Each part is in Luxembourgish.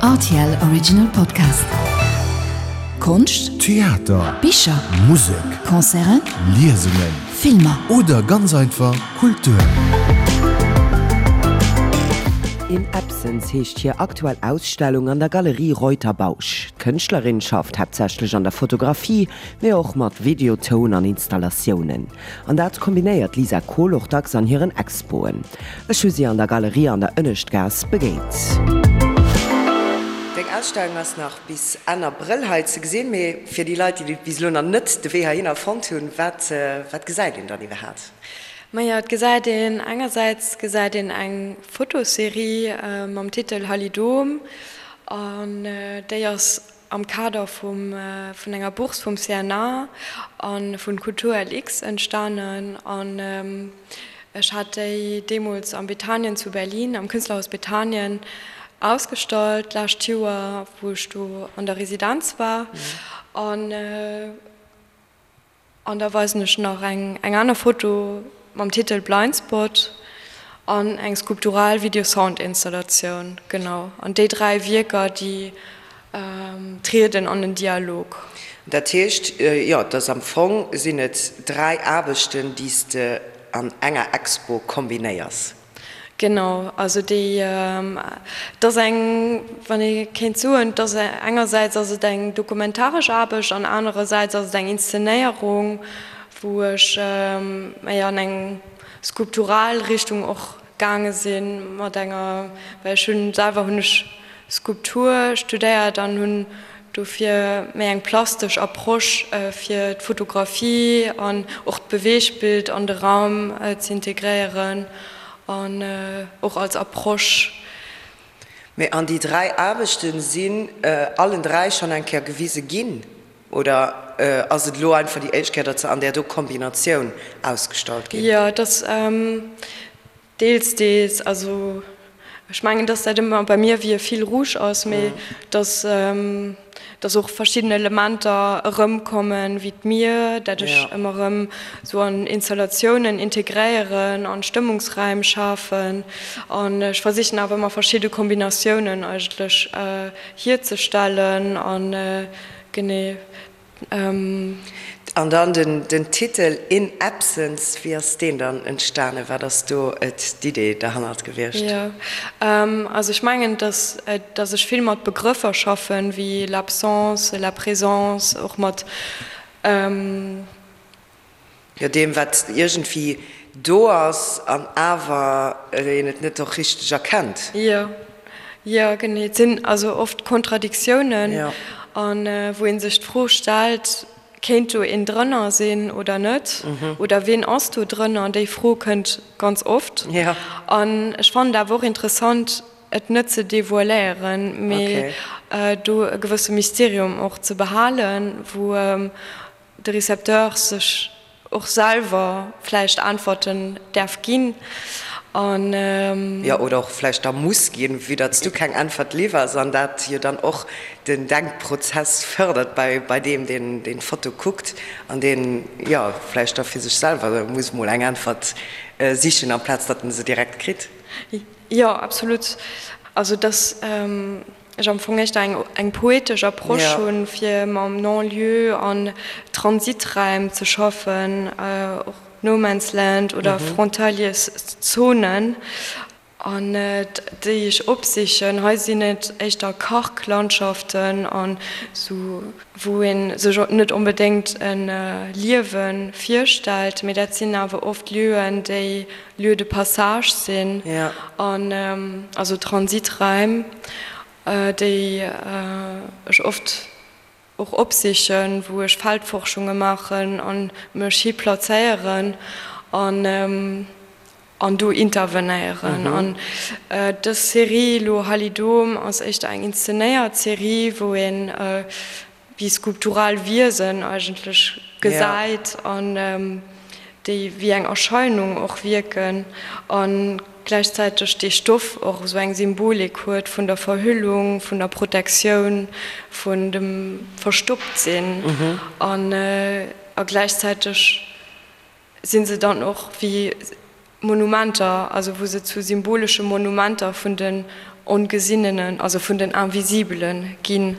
Rtl Original Podcast. Konscht, Theater, Bicher, Musek, Concerten, Liesungen Filmer. oder ganz einfach Kultur. In Absence heescht hir aktuell Ausstellung an der Galerie Reuter-Bausch. D'Kënschtlerin schafft haaptsächlech an der Fotografie, mee och mat Video, Toun an Installatiounen. An dat kombinéiert d'Lisa Kohl och dacks an hiren Expoen. Ech hu si an der Galerie an der Ënneschtgaass begéint. Deng Ausstellung ass nach bis Enn Abrëll hei ze gesinn, mee fir déi Leit, déi bis elo nach net de Wee heihinner fonnt hunn, wat wat gesäit een dann iwwerhaapt? Majo, et gesäit een, engersäits gesäit een eng Fotoserie mam Titel Halidom an déi ass am Kader vum vun enger Bourse vum CNA a vun Kultur LX entstanen an ech hat déi deemools am Bethanien zu Berlin, am Künstlerhaus Bethanien ausgestallt d'lescht Joer, wou ech do an der Residenz war an. An da weisen ech nach eng eng aner Foto mam Titel Blind Spot an eng skulptural Video-Sound-Installatioun. Genau. An déi 3 Wierker, déi trieden an en Dialog. Dat heescht, jo, dass am Fong sinn et 3 Aarbechten, déi s de an enger Expo kombinéiers. Genau, also déi, et ass eng, wann ee kéint soen, et ass engersäits ass et eng dokumentaresch Aarbecht an anerersäits ass et eng Inszenéierung, wou ech méi an eng skulptural Richtung och gaange sinn mat enger, well ech hunn selwer hunn ech Skulptur studéiert an hunn dofir méi eng plastesch Approche fir d'Fotografie an och d'Beweegbild an de Raum z'integréieren an och als Approche. Mee an déi 3 Aarbechten sinn allen 3 schonn eng Kéier gewise ginn oder ass et elo einfach déi éischt Kéier, datt se an där do Kombinatioun ausgestallt ginn? Jo, et ass Deels, deels. Also ech mengen, dass dat ëmmer bei mir wéi e Fil rouge ass, mee dass, dass och verschidden Elementer erëmkommen, wéi d'Mier, dat ech ëmmer erëm esou an Installatiounen integréieren, an Stëmmungsräim schafen. An ech versichen awer ëmmer verschidde Kombinatiounen eigentlech hierzestellen an genee. An dann den Titel In Absence, wéi ass deen dann entstanen? Wat ass do d'Idee derhannert gewiescht? Jo, also ech mengen, dass dass ech vill mat Begrëffer schaffen, wéi l'absence, la présence, och mat. Jo, deem wat iergendwéi do ass an awer een et net och richteg erkennt. Jo, jo genee. Et sinn also oft Kontradiktiounen, an wou ee sech d'Fro stellt, kéint do een drënner sinn oder net? Oder ween ass do drënner? Déi Fro kënnt ganz oft. An ech fannen et awer och interessant, et net ze devoiléieren, mee do e gewësse Mysterium och ze behalen, wou de Recepteur sech och selwer vläicht Äntwerten däerf ginn an. Jo, oder och vläicht da muss ginn, vue datt s du keng Äntwert liwwers an dat jo dann och den Denkprozess fërdert bei bei deem, deen deen d'Foto kuckt an deen, jo, vläicht da fir sech selwer muss mol eng Äntwert sichen, amplaz datt en se direkt kritt. Jo, absolut. Also dass ech am Fong éischter eng eng poetesch Approche hunn, fir mam Non-lieu an Transiträim ze schaffen, och No Man's Land oder Frontaliers-Zonen, an déi ech opsichen. Hei sinn et éischter Karglandschaften an esou, wou ee sech net onbedéngt e Liewe virstellt, mee dat sinn awer oft Lieuen, déi Lieux de passage sinn an also Transiträim, déi ech oft och opsichen, wou ech Feldforschunge maachen a mech hi plazéieren an an do intervenéieren. An dës Serie elo Halidom ass éischter eng inszenéiert Serie, wou een wéi skulptural Wiesen eigentlech gesäit an déi wéi eng Erscheinung och wierken a gläichzäiteg dee Stoff och esou eng Symbolik huet vun der Verhüllung, vun der Protektioun, vun dem Verstopptsinn an a gläichzäiteg si se dann och wéi Monumenter, also wou se zu symbolesche Monumenter vun den. Ongesinnenen, also vun den Invisibelen ginn.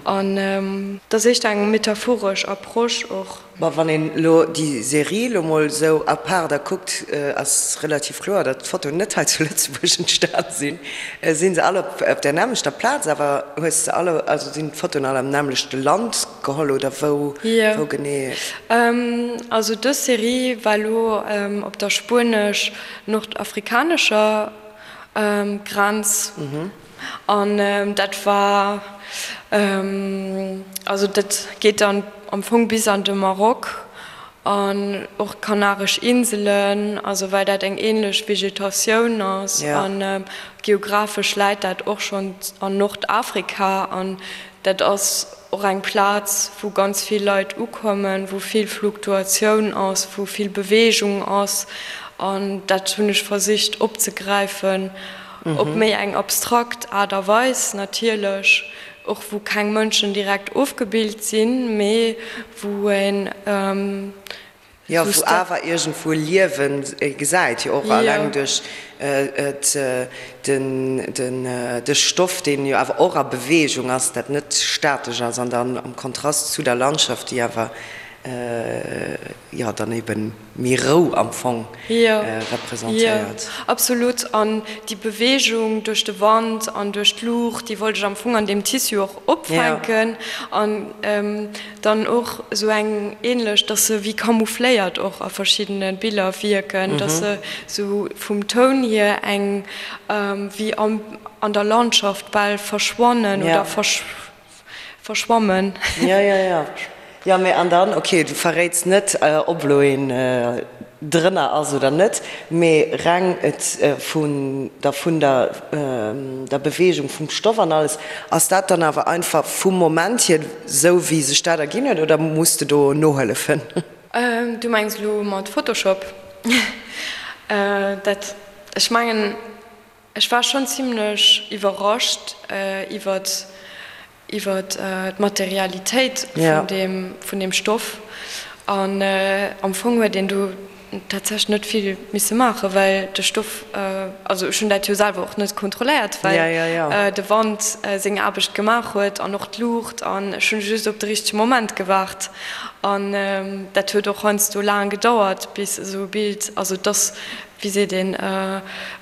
An dat ass éischter eng metaphoresch Approche och. Ma wann een elo déi Serie elo mol esou à part da kuckt, ass relativ kloer, datt d'Fotoen net hei zu Lëtzebuerg entstan sinn. Sinn se all op der nämmlechter Plaz awer? Hues de alle, also sinn d'Fotoen all am nämmlechte Land geholl oder wou, wou genee? Also dës Serie war elo op der spuenesch-nordafrikanescher Grenz. An dat war, also dat geet dann am Fong bis an de Maroc an och d'Kanaresch Inselen, also well dat eng ähnlech Vegetatioun ass an geographesch läit dat och schonn an Nordafrika an dat ass och eng Plaz wou ganz vill Leit ukommen, wou vill Fluktuatioun ass, wou vill Beweegung ass an dat hunn ech versicht opzegräifen. Op méi eng abstrakt Aart a Weis natierlech, och wou keng Mënschen direkt ofgebilt sinn, mee wou een. Jo, wou awer iergendwou Liewen gesäit, jo och alleng duerch de Stoff, deen jo awer och a Beweegung ass, dat net statesch ass an dann am Kontrast zu der Landschaft, déi awer jo dann eben méi Rou am Fong representéiert. Jo, absolut. An déi Beweegung duerch de Wand an duerch d'Luucht, déi wollt ech am Fong an deem Tissu och opfänken. An dann och esou eng ähnlech, dass se wéi camoufléiert och a verschiddene Biller wierken, dass se esou vum Toun hier eng wéi an der Landschaft bal verschwannen oder Verschwammen. Jo, jo, jo. Jo, mee an dann, okay, du verréits net, ob elo een drënner ass oder net, mee reng et vun der, vun der, der Beweegung vum Stoff an alles, ass dat dann awer einfach vum Moment hier esou, wéi sech dat erginn huet, oder muss de do nohëllefen? Du mengs elo mat Photoshop? Dat, ech mengen, Ech war schonn zimlech iwwerrascht iwwert iwwert d'Materialitéit vun deem vun deem Stoff. An am Fong huet een do tatsächlech net vill misse maachen, well de Stoff, also ech hunn dat jo selwer och net kontrolléiert, well de Wand seng Aarbecht gemaach huet an och d'Luucht an ech hunn just op de richtege Moment gewaart. An dat huet och heiansdo laang gedauert, bis esou e Bild, also dass wéi seet een,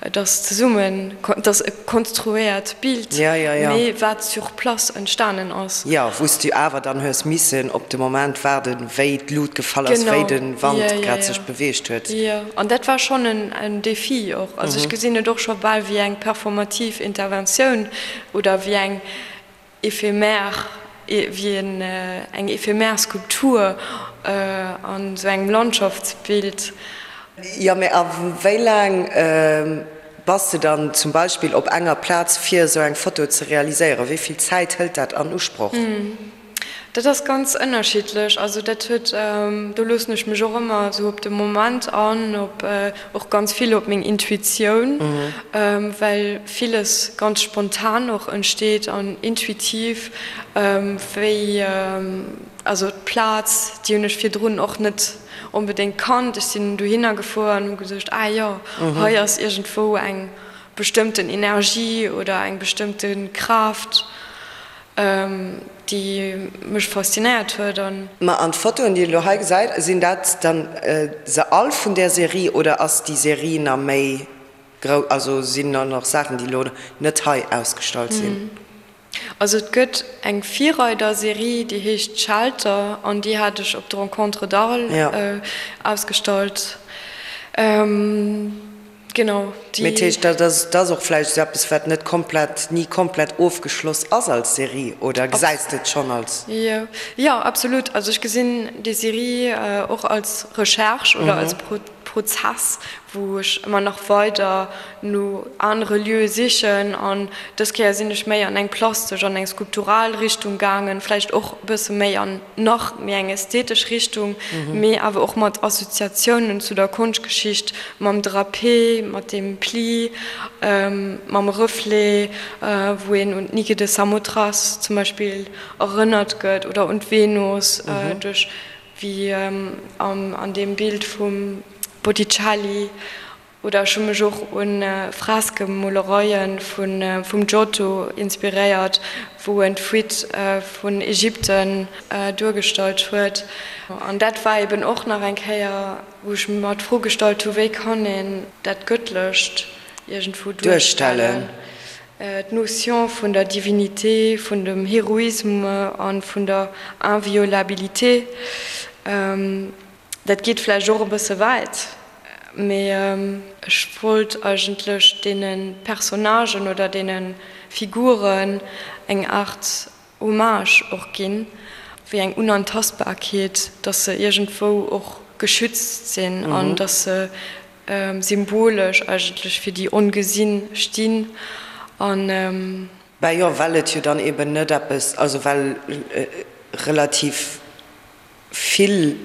et ass zesummen, et ass e konstruéiert Bild, mee wat sur place entstanen ass. Jo, wou s du awer dann hues missen op de Moment waarden, wéi d'Lut gefall ass, wéi de Wand grad sech beweegt huet. Jo, an dat war schonn en Défi och. Also ech gesinn et och scho bal wéi eng performativ Interventioun oder wéi eng éphémère, wéi eng éphémère Skulptur an esou engem Landschaftsbild. Jo, mee a wéi laang bass de dann zum Beispill op enger Plaz fir esou eng Foto ze realiséieren? Wéi vill Zäit hëlt dat an Usproch? Dat ass ganz ënnerschiddlech. Also dat huet, do loossen ech mech och ëmmer esou op de Moment an, op och ganz vill op meng Intuitioun, well villes ganz spontan och entsteet an intuitiv, wéi also d'Plaz, déi hunn ech virdrun och net onbedéngt kannt. Ech sinn dohinner gefuer an hu geduecht, ah jo, hei ass iergendwou eng bestëmmten Energie oder eng bestëmmte Kraaft. Déi mech faszinéiert huet an. Ma an d'Fotoen déi een elo hei gesäit, sinn dat dann se all vun där Serie oder ass déi Serie na méi grou, also sinn da nach Saachen déi elo net hei ausgestallt sinn? Also et gëtt eng Virreider-Serie déi heescht Shelter an déi hat ech op de Rencontres d'Arles ausgestallt. Genau, déi. Mee dat heescht, dat ass, dat ass och vläicht esou eppes, wat net komplett, ni komplett ofgeschloss ass als Serie, oder gesäis de et schonn als. Jo, jo, absolut. Also ech gesinn déi Serie och als Recherche oder als Prozess, wou ech ëmmer nach weider no anere Lieue sichen. An dës Kéier sinn ech méi an eng plastesch, an eng skulptural Richtung gaangen, vläicht och e bësse méi an nach méi eng ästhetesch Richtung, mee awer och mat Assoziatiounen zu der Konschtgeschicht, mam Drapé, mat dem Pli, mam Reflet, wou een un d'Nike de Samothrace zum Beispill erënnert gëtt oder un d'Venus duerch, wéi an deem Bild vum Botticelli. Oder ech hu mech och un Freskemolereien vum Giotto inspiréiert, wou en d'Fuite vun Ägypten duergestallt huet. An dat war eben och nach eng Kéier, wou ech mer d'Fro gestallt hu, wéi kann een dat Gëttlecht iergendwou duerstellen? D'Notion vun der Divinité, vun dem Héroïsme a vun der Inviolabilité. Dat geet vläicht och e bësse wäit, mee ech wollt eigentlech deene Personnagen oder deene Figuren eng Aart Hommage och ginn, wéi eng Unantastbarkeet, dass se iergendwou och geschützt sinn an dass se symbolesch eigentlech fir déi Ongesinn stinn. An. Ben jo, well et jo dann eben net eppes, also well relativ Vill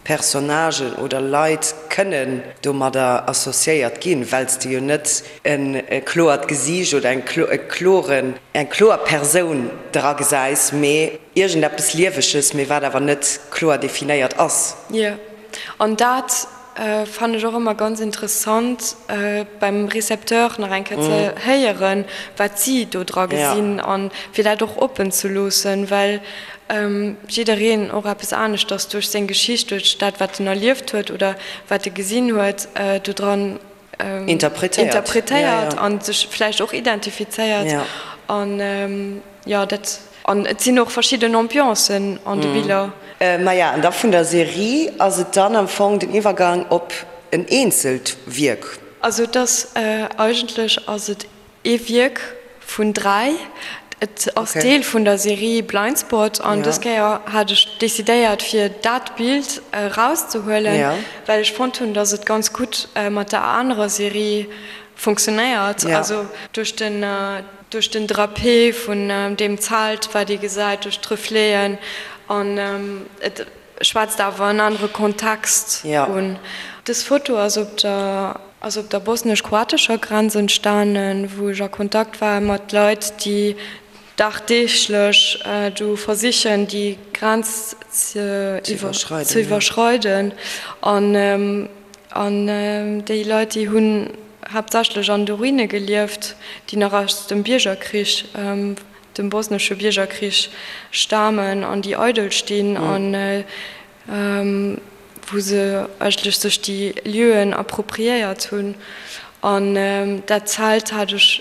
Personnagen oder Leit kënnen domadder associéiert ginn, well s de jo net e kloert Gesiicht oder eng kloren, eng kloer Persoun dra gesäis, mee iergendeppes Lieweges, mee wat awer net kloer definéiert ass. Jo, an dat fannen ech och ëmmer ganz interessant beim Recepteur nach eng Kéier ze héieren, wat si do dra gesinn an fir dat och oppen ze loossen, well jiddereen och eppes aneschters duerch seng Geschicht, duerch dat wat en erlieft huet oder wat e gesinn huet, do dran interpretéiert an sech vläicht och identifizéiert an jo dat. An et sinn och verschidden Ambiancen an de Biller. Maja, an da vun der Serie ass et dann am Fong den Iwwergang op en eenzelt Wierk. Also et ass eigentlech ass et ee Wierk vun 3. Et ass Deel vun der Serie Blindspot an dës Kéier hat ech decidéiert fir dat Bild erauszehuelen, well ech fonnt hunn, datt et ganz gutt mat der anerer Serie funktionéiert. Also duerch den Duerch den Drapé vun deem Zelt, wat ee gesäit, duerch d'Refleten, an et schwätzt awer en anere Kontext un. Dës Foto ass op der ass op der bosnesch-kroatescher Grenz entstanen, wou ech a Kontakt war mat Leit, déi dagdeeglech do versichen, déi Grenz ze iwwerschreiden. An An déi Leit, déi hunn haaptsächlech an de Ruine gelieft, déi nach aus dem Biergerkrich, dem bosnesche Biergerkrich stamen an déi eidel stinn an wou se eigentlech sech déi Lieuen appropriéiert hunn. An dat Zelt hat ech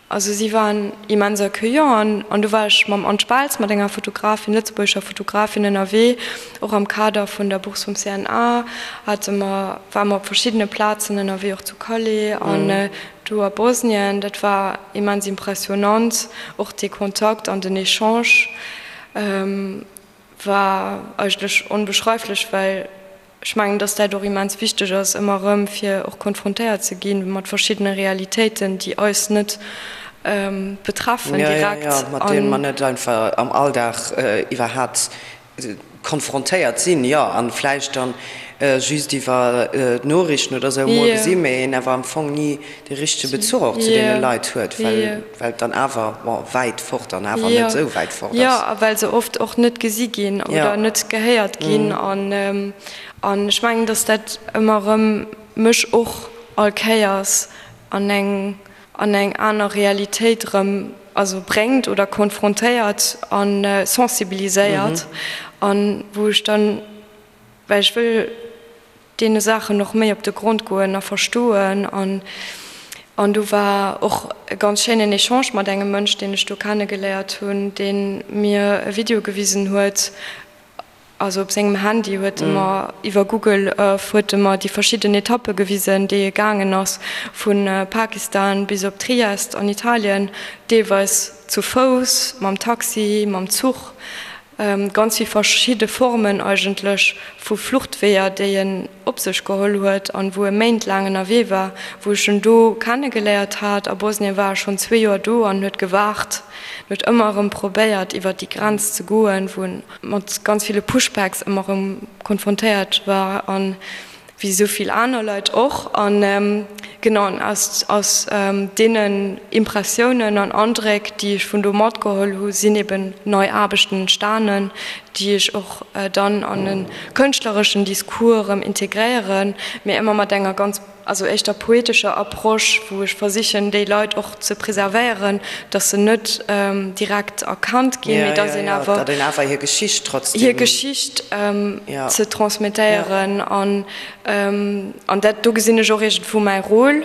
Also si waren immens accueillant an do war ech mam Anne Speltz, mat enger Fotografin, lëtzebuergescher Fotografin ënnerwee, och am Kader vun der Bourse vum CNA hate mer, ware mer op verschiddene Plazen ënnerwee, och zu Calais an do a Bosnien. Dat war immens impressionant, och dee Kontakt an den Echange war eigentlech onbeschreiflech, well Ech mengen, dass dat och immens wichteg ass, ëmmer erëm, fir och konfrontéiert ze gi mat verschiddene Realitéiten, déi eis net betreffen direkt. Jo, jo, mat deene mer net einfach am Alldag iwwerhaapt konfrontéiert sinn, jo, a vläicht dann just iwwer d'Noriichten oder esou emol gesinn, mee een awer am Fong ni de richtege Bezuch och zu deene Leit huet, well et dann awer, bon, wäit fort an awer net esou wäit fort ass. Jo, a well se oft och net gesi ginn oder net gehéiert ginn. An ech mengen, datt dat ëmmer erëm mech och all Kéiers an eng an eng aner Realitéit erëm, also bréngt oder konfrontéiert a sensibiliséiert an wou ech dann, well ech wëll deene Saachen och méi op de Grond goen a verstoen. An an do war och e ganz schéinen Echange mat engem Mënsch, deen ech do kennegeléiert hunn, dee mir e Video gewisen huet, also op sengem Handy huet e mer iwwer Google Earth huet e mer déi verschidden Etappe gewisen, déi e gaangen ass, vu Pakistan bis op Triest an Italien, deelweis zu Fouss, mam Taxi, mam Zuch. Ganz vill verschidde Formen eigentlech vu Fluchtweeër, déi en op sech geholl huet an wou e méintlaang ënnerwee war, wou ech en do kennegeléiert hat. A Bosnien war e schonn zwee Joer do an huet gewaart, en huet ëmmer erëm probéiert iwwer déi Grenz ze goen, wou en mat ganz ville Pushbacks ëmmer erëm konfrontéiert war. An wéi esou vill aner Leit och, an genau an aus aus deenen Impressiounen an Andréck, déi ech vun do matgeholl hu, sinn eben nei Aarbechten entstanen, déi ech och dann an e kënschtlereschen Discours erëm integréieren, mee ëmmer mat enger ganz. also éischter poetescher Approche, wou ech versichen déi Leit och ze preservéieren, datt se net direkt erkannt ginn, mee datt een awer. Datt een awer hir Geschicht trotzdem. Hir Geschicht ze transmettéieren an an dat do gesinn ech och iergendwou mäi Rôle.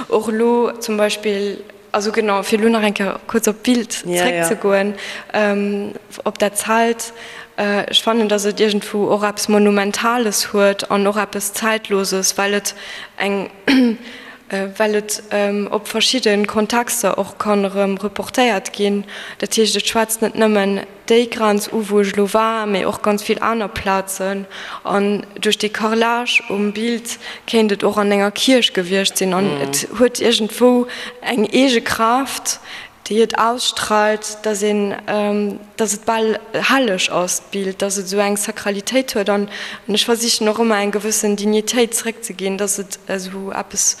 Och elo zum Beispill, also genau, fir elo nach eng Kéier kuerz op d'Bild zréckzegoen, op dat Zelt, ech fannen, datt et iergendwou och eppes Monumentales huet an och eppes Zäitloses, well et eng, well et op verschidde Kontexter och kann erëm reportéiert ginn. Dat heescht, et schwätzt net nëmmen déi Grenz u wou ech elo war, mee och ganz vill aner Plazen. An duerch dee Carrelage um Bild kéint et och an enger Kierch gewiescht sinn. An et huet iergendwou eng eege Kraaft, déi et ausstrahlt, dass een, dass et bal helleg ass, d'Bild, dass et esou eng Sakralitéit huet. An ech versichen och ëmmer eng gewëssen Dignitéit zeréckzeginn, dass et esou eppes,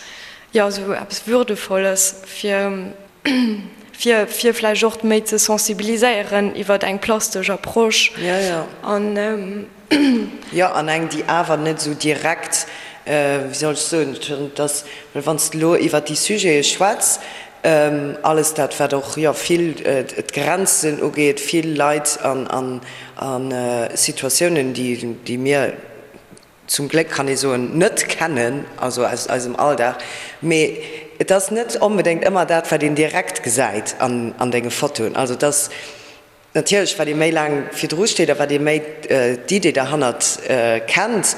jo, esou eppes Würdevolles fir. fir fir vläicht och méi ze sensibiliséieren iwwert eng plastesch Approche. Jo, jo. An. Jo, an eng, déi awer net esou direkt, wéi soll ech soen, dass, well wann s de elo iwwert déi Sujete schwätz, alles dat, wat och, jo, vill d'Grenzen ugeet, vill Leit an a Situatiounen, déi, déi mir, zum Gléck kann ee soen, net kennen, also aus eisem Alldag, mee et ass net onbedéngt ëmmer dat, wat een direkt gesäit an denge Fotoen. Also et ass natierlech, wat ee méi laang virdru steet a wat ee méi d'Idee derhannert kennt,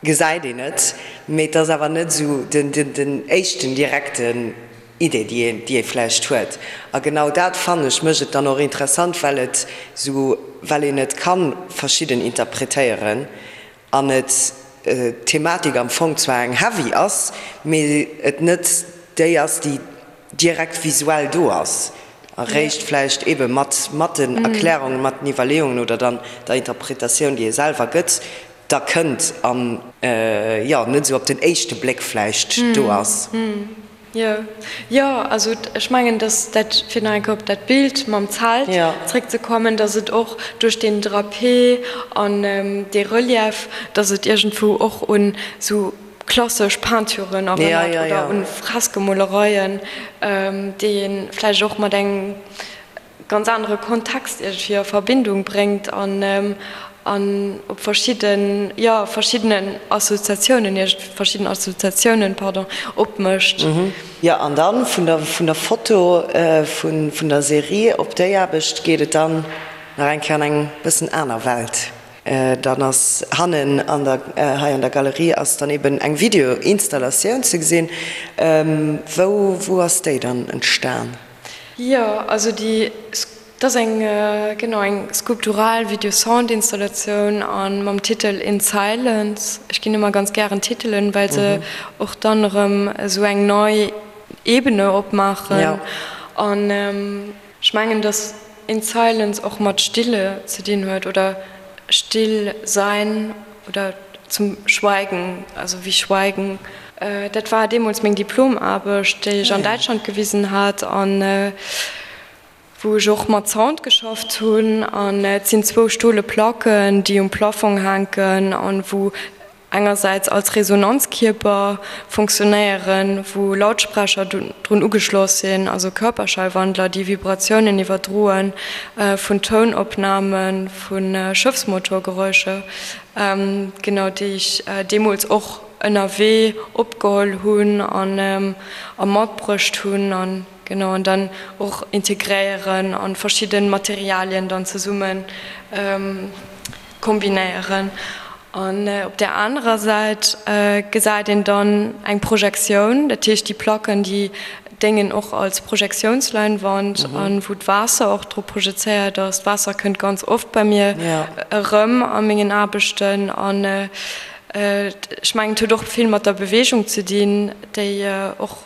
gesäit een et, mee et ass awer net esou den éischten direkten Idee, déi een, déi ee vläicht huet. A genau dat, fannen ech, mécht et dann och interessant, well et esou, well een et ka verschidden interpretéieren an et d'Thematik am Fong zwar eng heavy ass, mee et net déi ass, déi direkt visuell do ass, eréischt vläicht eebe mat, mat den Erklärungen, mat den Iwwerleeungen oder dann der Interpretatioun, déi ee selwer gëtt, da kënnt an, jo, net esou op den éischte Bléck vläicht do ass. Jo, jo, also ech mengen, dass dat, fir nach eng Kéier op dat Bild mam Zelt zréckzekommen, dass et och duerch deen Drapé an dee Relief, dass et iergendwou och un esou klassesch Peinturen erënnert oder un Freskemolereien, déi ee vläicht och mat engem ganz anere Kontext iergendwéi a Verbindung bréngt an an op verschidden, jo, verschiddenen Assoziatiounen, verschidden Assoziatiounen, pardon, opmécht. Jo, an dann vun der, vun der Foto, vun, vun der Serie op déi Aarbecht geet et dann nach eng Kéier an eng bëssen aner Welt. Dann ass hannen an der, hei an der Galerie ass dann eben eng Videoinstallatioun ze gesinn. Wou, wou ass déi dann entstan? Jo, also déi, dat ass eng, genau, eng skulptural Video-Sound-Installatioun a mam Titel In Silence. Ech ginn ëmmer ganz gären Titelen, well se och dann erëm esou eng nei Ebene opmaachen. An ech mengen, datt In Silence och mat Stille ze dinn huet oder still sein oder zum Schweigen, also wie Schweigen. Dat war deemools meng Diplomaarbecht, déi ech an Däitschland gewisen hat an wou ech och mat Sound geschafft hunn. An et sinn zwou stole Placken, déi um Plafong hänken an wou engersäits als Resonanzkierper funktionéieren, wou Lautsprecher drun ugeschloss sinn, also Körperschallwandler, déi Vibratiounen iwwerdroe vun Tounopname vu Schëffsmotorgeräuscher, genau, déi ech deemools och ënnerwee opgeholl hunn a matbruecht hunn an genau an dann och integréieren an verschidde Materialien dann zesumme kombinéieren. An op där anerer Säit gesäit een dann eng Projektioun, dat heescht déi Placken déi déngen och als Projektiounsleinwand an wou d'Waasser och drop projezéiert ass. D'Waasser kënnt ganz oft bei mir erëm a mengen Aarbechten an ech mengen et huet och vill mat der Beweegung ze dinn, déi och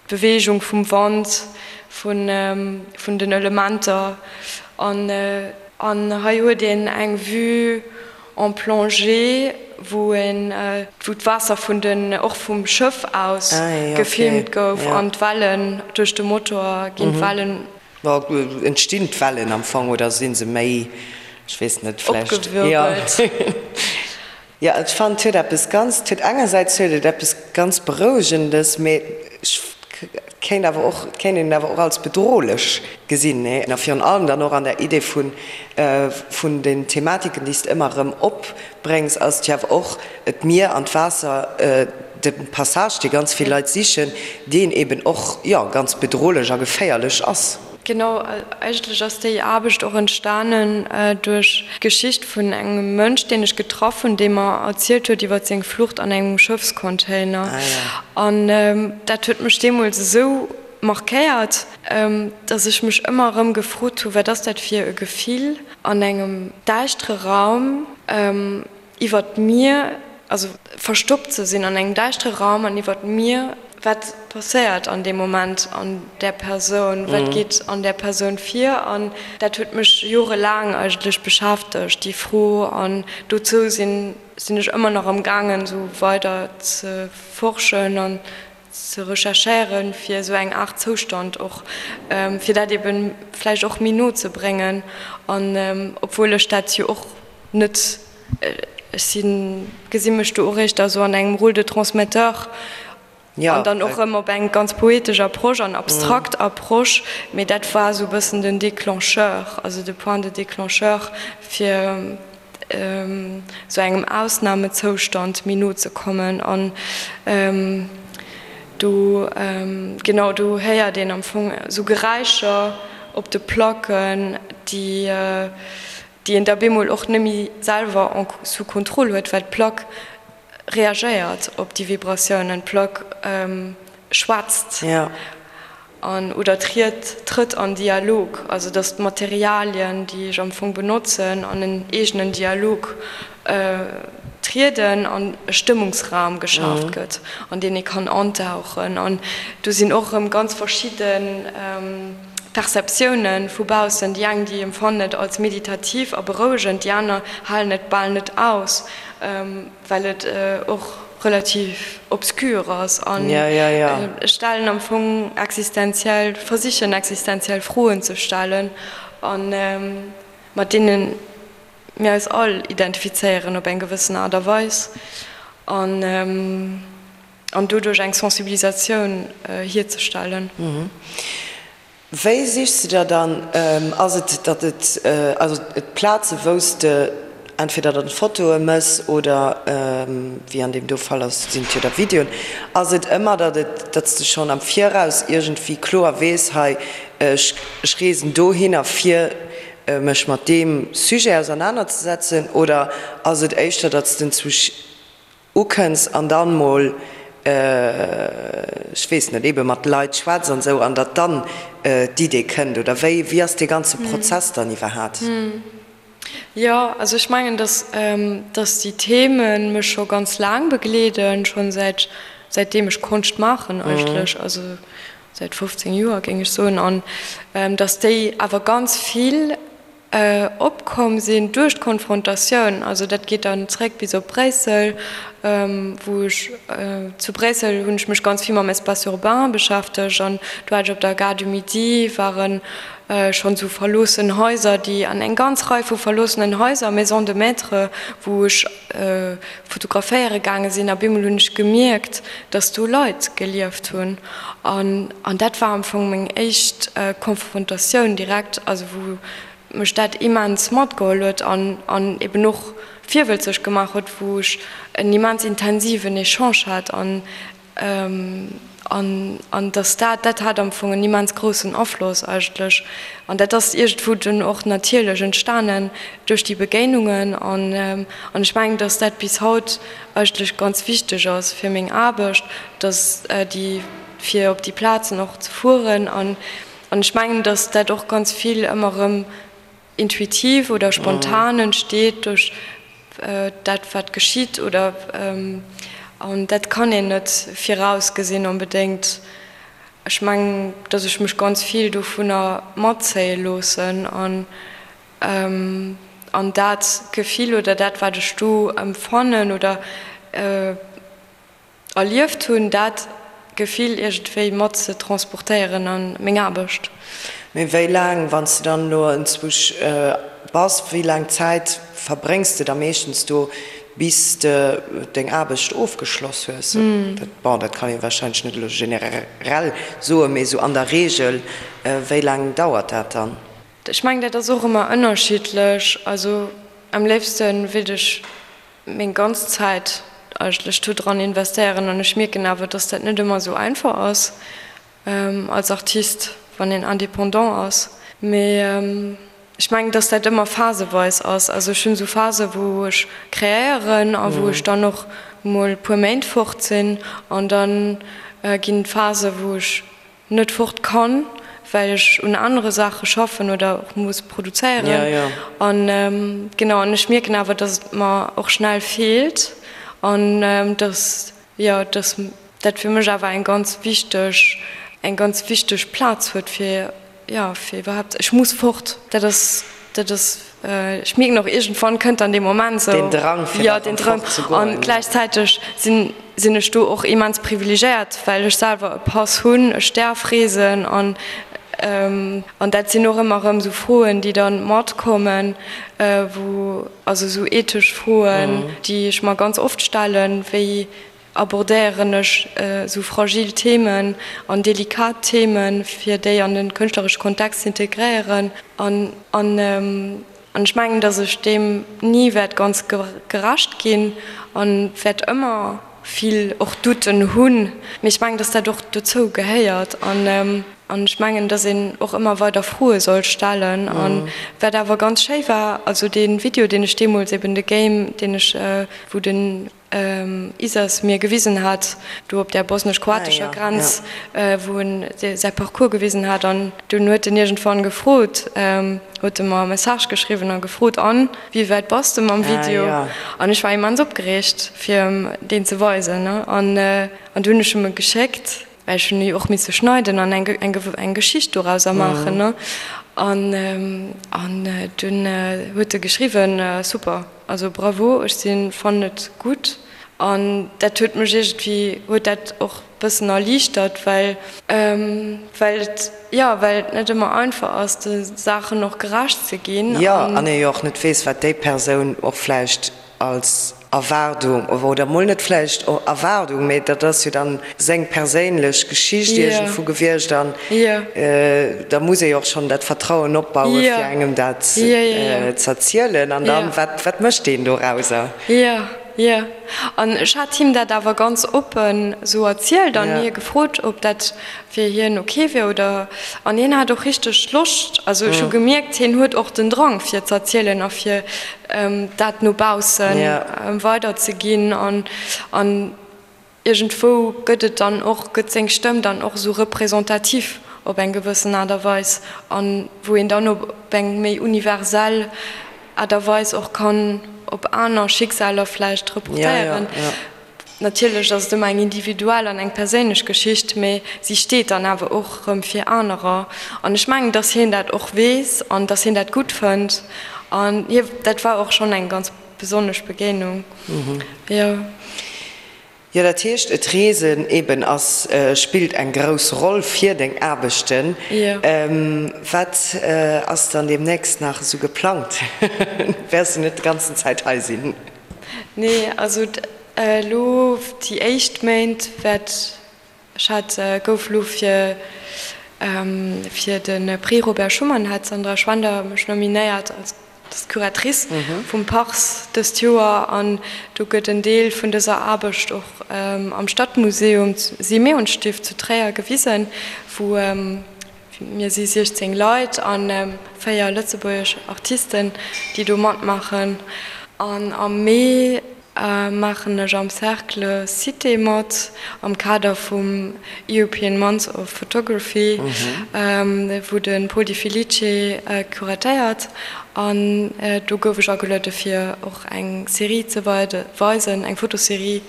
d'Beweegung vum Wand, vun vun den Elementer an an hei huet een eng Vue en plongée, wou een wou d'Waasser vun den och vum Schëff aus gefilmt gouf an d'Wellen duerch de Motor ginn d'Wellen. Entstinn d'Wellen am Fong oder si se méi, ech weess net, vläicht. Opgewirbelt. Jo, ech fannen et huet eppes ganz, et huet engersäits huet et eppes ganz Berouegendes, mee ech kéint awer och, et kéint een et awer och als bedrohlech gesinn, nee? A virun allem dann och an der Idee vun, vun den Thematiken, déi s de ëmmer erëm opbréngs, ass et jo awer och d'Mier an d'Waasser, de Passage, dee ganz vill Leit sichen, deen eben och, jo, ganz bedrohlech a geféierlech ass. Genau, eigentlech ass déi Aarbecht och entstanen duerch d'Geschicht vun engem Mënsch, deen ech getraff hunn, dee mer erzielt huet iwwer seng Flucht an engem Schëffscontainer. An dat huet mech deemools esou markéiert, datt ech mech ëmmer erëm gefrot hu, wat ass dat fir e Gefill, an engem däischtere Raum, iwwert d'Mier, also verstoppt ze sinn an engem däischtere Raum an iwwert d'Mier, wat passéiert an deem Moment an där Persoun, wat geet an där Persoun vir? An dat huet mech jorelaang eigentlech beschäftegt, déi Fro. An dozou sinn sinn ech ëmmer nach am gaangen, esou weider ze forschen an ze recherchéieren, fir esou eng Aart Zoustand och, fir dat eben vläicht och méi no ze bréngen. An obwuel ech dat jo och net, ech sinn, gesi mech do och éischter esou an engem Rôle de transmetteur an dann och erëm op eng ganz poetesch Approche an abstrakt Approche, mee dat war esou e bëssen den Déclencheur, also de Point de déclencheur, fir esou engem Ausnamezoustand méi no ze kommen an do, genau, do héiert een am Fong esou Geräischer op de Placken, déi déi een da bemol och net méi selwer en sous contrôle huet, well d'Plack reagéiert op déi Vibratiounen, d'Plack schwätzt an oder triet trëtt an Dialog, also datt d'Materialien, déi ech am Fong benotzen, an en eegenen Dialog trieden an e Stëmmungsraum geschaaft gëtt, an deen ee kann antauchen. An do sinn och erëm ganz verschidde Perceptiounen vu baussen, déi eng, déi empfannen et als meditativ a berouegend, déi aner halen et bal net aus, well et och relativ obscur ass an stellen am Fong existenziell, versichen existenziell Froen ze stellen an mat deene mir eis all identifizéieren op eng gewëssen Aart a Weis an an doduerch eng Sensibilisatioun hierzestellen. Wéi sichs de der dann, ass et datt et, also d'Plaze wou s de entweder dann Fotoe mëss oder wéi an deem do Fall ass, sinn et jo da Videoen, ass et ëmmer datt et, datt s de schonn am Viraus iergendwéi kloer weess, hei ech reesen dohinner fir mech mat deem Sujet ausernanerzesetzen, oder ass et éischter datt s de zu ukënns an dann mol, ech weess net, ebe mat Leit schwätz an esou an datt dann d'Idee kënnt oder wéi, wéi ass dee ganze Prozess dann iwwerhaat? Jo, also ech mengen, datt datt déi Theme mech scho ganz laang begleeden, schonn säit säitdeem ech Konscht maachen eigentlech, also säit 15 Joer géing ech soen, an datt déi awer ganz vill opkomm sinn duerch d'Konfrontatioun, also dat geet dann zréck bis op Bréissel, wou ech, zu Bréissel hunn ech mech ganz vill mam Espace urbain beschäftegt an do hat ech op der Gare du Midi ware schonn esou verloossen Haiser, déi an eng ganz Rei vu verloossenen Haiser, Maisons de maître, wou ech fotograféiere gaange sinn a bemol hunn ech gemierkt, dass do Leit gelieft hunn an an dat war am Fong meng éischt Konfrontatioun direkt, also wou mech dat immens matgeholl huet an an eben och virwëlzeg gemaach huet, wou ech en immens intensiven Echange hat an An, an dass dat, dat hat am Fong en immens groussen Afloss eigentlech. An dat ass iergendwou dunn och natierlech entstanen duerch déi Begéinungen. An, an ech mengen, dass dat bis haut eigentlech ganz wichteg ass fir meng Aarbecht, dass déi, fir op déi Plazen och ze fueren. An, an ech mengen, dass dat och ganz vill ëmmer erëm intuitiv oder spontan entsteet duerch dat wat geschitt oder an dat kann een net virausgesinn onbedéngt. Ech mengen, datt ech mech ganz vill dovunner matzéie loossen an an dat Gefill oder dat wat ech do empfannen oder Erlieft hunn, dat Gefill iergendwéi mat ze transportéieren a meng Aarbecht. Mee wéi laang, wann s de dann elo enzwousch bass, wéi laang Zäit verbréngs de da meeschtens do? Bis de deng Aarbecht ofgeschloss hues. Bon, dat kann ee warscheinlech net elo generell soen, mee esou an der Reegel, wéi laang dauert dat dann? Ech mengen, dat ass och ëmmer ënnerschiddlech. Also am léifste wéilt ech meng ganz Zäit eigentlech do dran investéieren an ech mierken awer, dass dat net ëmmer esou einfach ass als Artist, wann een indépendant ass. Mee Ech mengen, dass dat ëmmer phaseweis ass. Also ech hunn esou Phasen, wou ech kreéieren a wou ech dann och mol e puer Méint fort sinn. An da ginn et Phasen, wou ech net fort kann, well ech un anere Saache schaffen oder och muss produzéieren. An genau, an ech mierken awer, dass et mer och schnell feelt an dass Jo, dass dat fir mech awer eng ganz wichteg, eng ganz wichteg Plaz huet fir, jo, fir iwwerhaapt, ech muss fort. Dat ass, dat ass, ech mierken och, iergendwann kënnt dann dee Moment esou. Deen Drang, fir da erëm fort ze goen. An gläichzäiteg sinn, sinn ech do och immens privilegéiert, well ech selwer e Pass hunn, ech däerf reesen an, an dat sinn och ëmmer erëm esou Froen, déi dann matkommen, wou, Also esou ethesch Froen, déi ech mer ganz oft stellen, wéi abordéieren ech esou fragil Themen an delikat Themen, fir déi an e kënschtleresche Kontext ze integréieren. An ech mengen, datt ech deem ni wäert ganz gerecht ginn a wäert ëmmer vill och Douten hunn, mee ech mengen, dass dat och dozou gehéiert an an ech mengen, dass een och ëmmer weider Froe soll stellen. An wat awer ganz schéi war, also dee Video, deen ech deemools eben, de Game, deen ech, wou den Isas mir gewisen hat, do op där bosnesch-kroatescher Grenz, wou en säi Parcours gewisen hat an dunn huet en iergendwann gefrot, huet e mer e Message geschriwwen a gefrot, An, wéi wäit bass de mam Video? An ech war immens opgereegt, fir em deen ze weisen. An du hunn ech em e geschéckt, well ech hunn e jo och misse schneiden an eng eng Geschicht dorauser maachen. An an dunn huet e geschriwwen, Super, also bravo, ech si fannen et gutt. An dat huet mech iergendwéi, huet dat och bëssen erliichtert, well well et, jo, well et net ëmmer einfach ass, de Saachen och gerecht ze ginn. Jo, an ee jo och net weess, wat déi Persoun och vläicht als Erwaardung, oder mol net vläicht Erwaardung, mee dat ass jo dann seng perséinlech Geschicht iergendwou gewiescht an da muss ee jo och schonn dat Vertrauen opbauen, fir engem dat z'erzielen. An dann, wat wat mécht deen dorauser? Jo, an ech hat him dat awer ganz oppen esou erzielt an hie gefrot, ob dat fir hien ok wier oder. An hien hat och richteg Loscht, also ech hu gemierkt, hien huet och den Drang fir ze erzielen a fir dat no bausse weider ze ginn an an iergendwou gëtt et dann och, gëtt seng Stëmm dann och esou représentatif op eng gewëssen Aart a Weis an wou een dann op eng méi universell Aart a Weis och kann op aner Schicksaler vläicht reportéieren. Natierlech ass et ëmmer eng individuell an eng perséinlech Geschicht, mee si steet dann awer och erëm fir anerer. An ech mengen, dass hien dat och weess an dass hien dat gutt fënnt. An hie, dat war och schonn eng ganz besonnesch Begéinung, jo. Jo, dat heescht, et Reesen eben ass, spillt eng grouss Roll fir deng Aarbechten. Wat ass dann deemnächst nach esou geplangt? Wäers du net d'ganzen Zäit hei sinn? Nee, also elo déi éischt Méint wäert Ech hat, gouf elo fir fir de Prix Robert Schuman hat d'Sandra Schwender mech nominéiert als Curatrice vum Pars dëst Joer an do gëtt en Deel vun dëser Aarbecht och am Stadtmuseum Simeonstift zu Tréier gewisen, wou mir si 16 Leit a 4 lëtzebuergesch Artisten, déi do matmaachen. An am Mee Maachen ech am Cercle Cité mat, am Kader vum European Month of Photography, wou de Paul Di Felice curatéiert. An do gouf ech ageluede fir och eng Serie ze weisen, eng Fotoserie.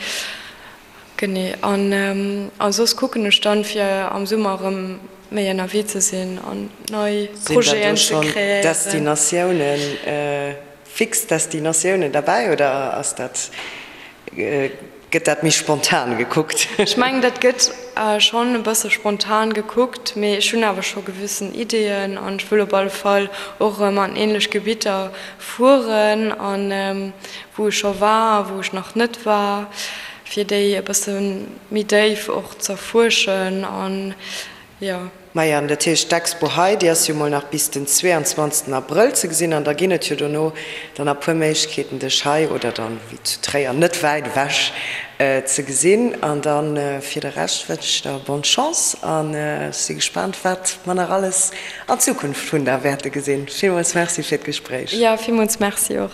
Genee. An soss kucken ech dann, fir am Summer erëm méi ënnerwee ze sinn an nei Projeten ze kreéieren. Sinn da do schonn Destinatiounen? Fix Destinatiounen derbäi oder ass dat, gëtt dat méi spontan gekuckt? Ech mengen, dat gëtt. schonn e bësse spontan gekuckt, mee ech hunn awer scho gewëssen Ideeën an ech wëll op alle Fall och erëm an ähnlech Gebitter fueren an wou ech scho war a wou ech nach net war, fir déi e bësse méi déif och z'erfuerschen an jo. Maja, an dat heescht, d'Expo hei, déi ass jo mol nach bis den 22 Abrëll ze gesinn an da ginn et jo dono dann nach puer Méiglechkeeten, dech hei oder dann, wéi zu Tréier, net wäit ewech ze gesinn. An dann fir de Rescht wënsch ech der bonne Chance an ech si gespaant, wat mer nach alles an Zukunft vun der wäerte gesinn. Villmools Merci fir d'Gespréich. Jo, villmools Merci och.